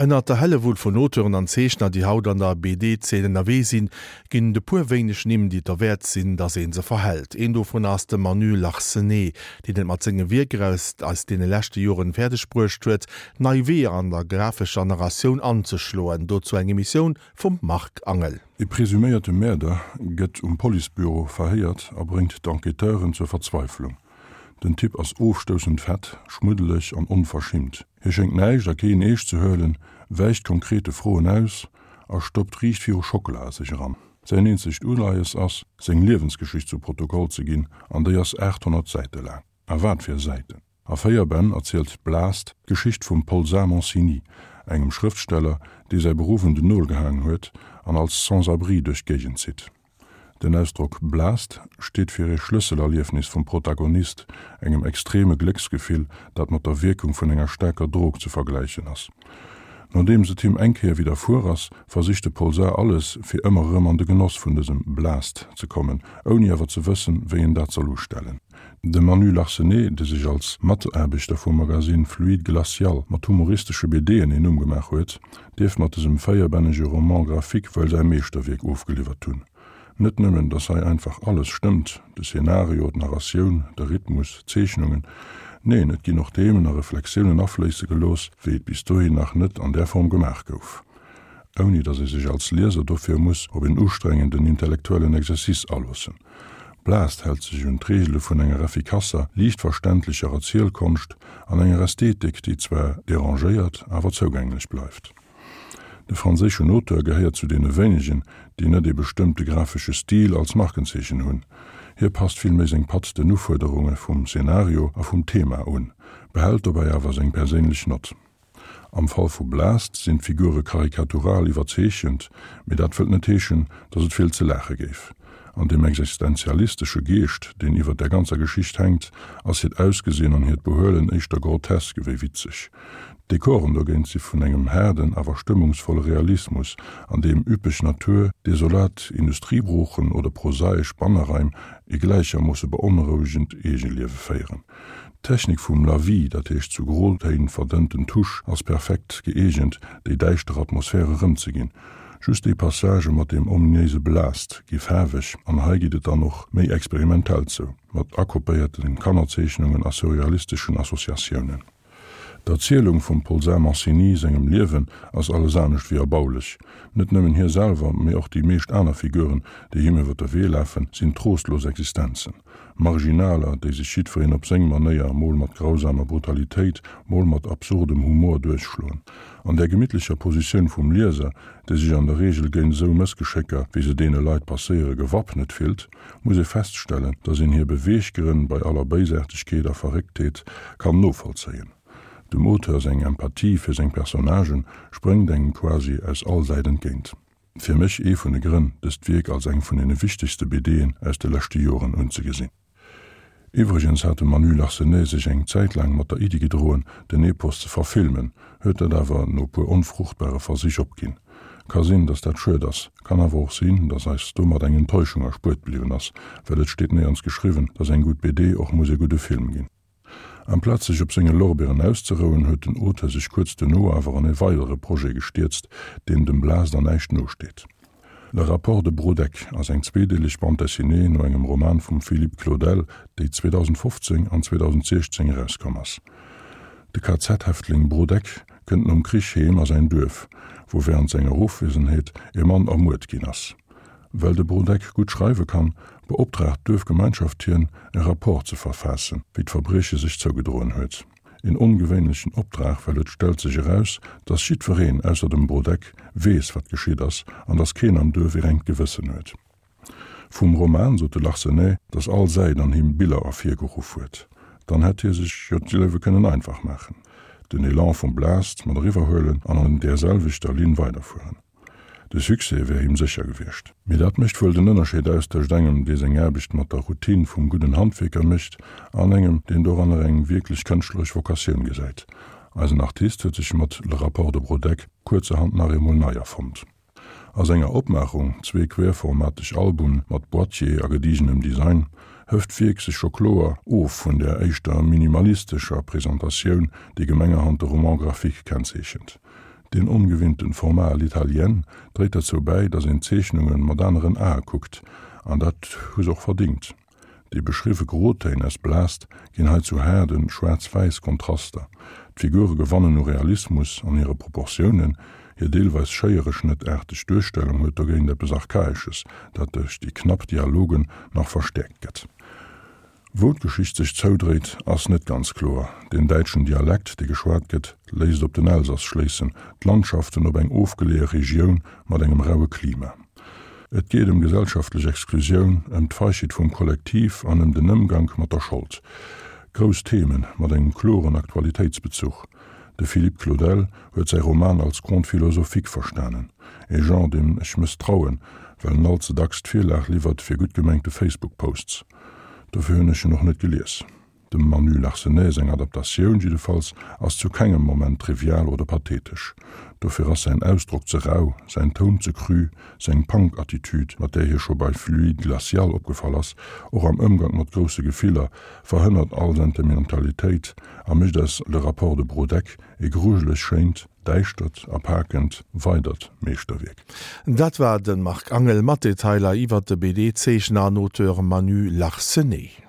Ënnert der Hellewull vun Auteuren an Zeechner, déi haut an der BD-Zeen ënnerwee sinn, ginn et e puer wéineg Nimm, déi et derwäert sinn, datt ee se verhält. Een dovun ass de Manu Larsenet, deen et mat senge Wierker aus aus deene leschte Joren fäerdeg bruecht huet, nei Weeër an der grafescher Narratioun anzeschloen. Dozou eng Emissioun vum Marc Angel. E presuméierte Mäerder gëtt um Policebüro verhéiert a bréngt d'Enquêteuren zur Verzweiflung. Den Typ ass ofstoussend fett, schmuddeleg an onverschimmt. Hie schéngt näischt a keen eescht ze huelen, wäicht konkrete Froen aus a stoppt riicht viru Schockela a sech eran. Säin eenzegt Uleies ass, seng Liewensgeschicht zu Protokoll ze ginn, an déi ass 800 Säite laang. A wat fir Säiten! A 4 Bänn erzielt Blast d'Geschicht vum Paul Mancini, engem Schrëftsteller, dee säi Beruff un den Nol gehaangen huet an als Sans-abri duerch d'Géigend zitt. Den Ausdrock Blast steet fir ee Schlësselerliefnis vum Protagonist, engem extreme Glécksgefill, dat mat der Wierkung vun enger staarker Drog ze vergläichen ass. Nodeems et him eng Kéier widderfuer ass, versicht de Polsar alles, fir ëmmer erëm an de Genoss vun dësem Blast ze kommen, ouni awer ze wëssen, wéi en dat soll ustellen. De Manu Larsenet, dee sech als Mataarbechter vum Magasinn Fluide Glacial mat humoristesche BDen een Numm gemaach huet, dierf mat dësem véierbännege Roman graphique wuel säi Meeschterwierk ofgeliwwert hunn. Net nëmmen, datt hei einfach alles stëmmt, de Szenario, d'Narratioun, de Rhythmus, d'Zeechnungen, neen, et ginn och Themen a Reflexiounen afléisse gelooss, wéi et bis dohin nach net an där Form gemaach gouf. Ouni datt ee sech als Lieser dofir muss op en ustrengenden intellektuellen Exercice aloossen. Blast hält sech un d'Reegele vun enger effikasser, liicht verständlecher Erzielkonscht an enger Ästhetik, déi zwar derangéiert, awer zougänglech bleift. De franséischen Auteur gehéiert zu deene wéinegen, déi net ee bestëmmte grafesche Stil als Markenzeechen hunn. Hie passt villméi seng Patt den Ufuerderunge vum Szenario a vum Thema un, behält dobäi awer seng perséinlech Nott. Am Fall vu Blast sinn d'Figure karikatural iwwerzeechent, mee dat wëllt net heeschen, datt et vill ze laache géif. An deem existenzialistesche Geescht, deen iwwer der ganzer Geschicht hänkt, ass hiert Ausgesinn an hiert Behuelen éischter grotesk ewéi witzeg. D'Dekoren dogéint si vun engem haarden, awer stëmmungsvolle Realismus, an deem üppeg Natur, desolat Industriebroochen oder prosaesch Banneraim e gläichermoosse beonrouegend Eegeliewe féieren. D'Technik vum Lavis, dat heescht zu Grotéin verdënnten Tusch, ass perfekt gëeegent, déi däischter Atmosphär erëmzeginn. Just déi Passagë mat deem ominéise Blast gi faarweg, an hei geet et dann och méi experimentell zou, mat akopéierte Kannerzeechnungen a surrealisteschen Associatiounen. D'Erzielung vum Polsar Mancini sengem Liewen ass alles anescht wéi erbaulech. Net nëmmen hie selwer, mee och déi meescht aner Figuren, déi him iwwer de Wee lafen, sinn trostlos Existenzen. Marginaler, déi sech jiddwereen op seng Manéier, mol mat grausamer Brutalitéit, mol mat absurdem Humor duerchschloen. An där gemittlecher Positioun vum Lieser, dee sech an der Reegel géint esou Mëssgeschécker, wéi se deene Leit passéiere, gewappnet fillt, muss ee feststellen, dass een hir Beweeggrënn bei aller Béisaartegkeet a Verrécktheet kann novollzéien. Dem Auteur seng Empathie fir seng Personnagen spréngt engem quasi aus all Säit entgéint. Fir mech ee vun de Grënn, dëst Wierk als eng vun deene wichtegste BDen aus de leschte Joren unzegesinn. Iwwregens hat de Manu Larsenet sech eng Zäit laang mat der Iddi gedroen, den Epos ze verfilmen, huet dat awer no puer onfruchtbare Versich opginn. Ka sinn, datt dat schued ass, kann awer och sinn, datt eis domat eng Enttäuschung erspuert bliwwen ass, well et steet néierens geschriwwen, datt eng gutt BD och muss e gudde Film ginn. Amplaz sech op senge Lorbeeren auszerouen, huet den Auteur sech kuerz duerno awer an e weidere Projet gestierzt, deen dem Blast an näischt nosteet. Le rapport de Brodeck ass eng zweedeeleg Bande dessinée no engem Roman vum Philippe Claudel, déi 2015 an 2016 erauskomm ass. De KZ-Häftling Brodeck kënnt nom Krich heem a säin Duerf, wou wärend senger Ofwiesenheet e Mann ermuert ginn ass. Well de Brodeck gutt schreiwe kann, beoptraagt d'Duerfgemeinschaft hien, e Rapport ze verfaassen, wéi d'Verbrieche sech zougedroen huet. Een ongewéinlechen Optrag, well et stellt sech eraus, dass jiddwereen, ausser dem Brodeck, weess, wat geschitt ass, an dass keen am Duerf ee rengt Gewëssen huet. Vum Roman sot de Larsenet, dass all Säit an him Biller ervirgeruff huet. Dann hätt hie sech jo d'Liewe kënnen einfach maachen, den Elan vum Blast mat eriwwerhuelen an an där selwechter Linn weiderfueren. De Succès wär him sécher gewiescht. Mee dat mécht wuel den Ënnerscheed aus tëscht engem, dee seng Aarbecht mat der Routine vum gudden Handwierker mécht, an engem, deen doranner eng wierklech kënschtleresch Vocatioun gesäit. Eisen Artist huet sech mat Le rapport de Brodeck kuerzerhand nach eemol nei erfonnt. A senger Opmaachung, zwee querformateg Album mat Boîtier a gedigenem Design, hëft d'Wierk sech scho kloer of vun där éischter minimalistescher Presentatioun, déi gemengerhand de Roman graphique kennzeechent. Deen ongewinnten Format à l'italienne dréit derzou bäi, datt een d'Zeechnunge mat aneren Ae kuckt, an dat hu se och verdingt. Déi beschriwwe Grotéin aus Blast ginn hei zu haarde schwaarz-wäiss Kontraster. D'Figure gewannen u Realismus an hire Proportiounen, hir deelweis schéiereschnëttaarteg Duerstellung huet dogéint eppes Archaesches, dat duerch déi knapp Dialogen nach verstäerkt gëtt. Wou d'Geschicht sech zoudréit, ass net ganz kloer. Den däitschen Dialekt, dee geschwat gëtt, léisst op den Elsass schléissen, d'Landschaften op eng ofgeleeë Regioun mat engem raue Klima. Et geet ëm gesellschaftlech Exklusioun, ëm d'Feigheet vum Kollektiv an ëm den Ëmgank mat der Schold. Grouss Themen mat engem kloren Aktualitéitsbezuch. De Philippe Claudel huet säi Roman als Conte philosophique verstanen, e Genre, deem ech mësstrauen, well en all ze dacks d'Virlag liwwert fir gutt gemengte Facebook-Posts. Dofir hunn ech en och net gelies. Dem Manu Larsenet seng Adaptatioun jiddefalls ass zu kengem Moment trivial oder pathetesch. Dofir ass säin Ausdrock ze rau, säin Toun ze cru, seng Punk-Attitude, mat där hie scho bei Fluide Glacial opgefall ass, och am Ëmgank mat grousse Gefiller, verhënnert all Sentimentalitéit a mécht aus Le rapport de Brodeck e grujeleg schéint, däischtert a pakend weidert Meeschterwierk. Dat war de Marc Angel mat Detailer iwwert de BD-Zeechner an Auteur Manu Larsenet.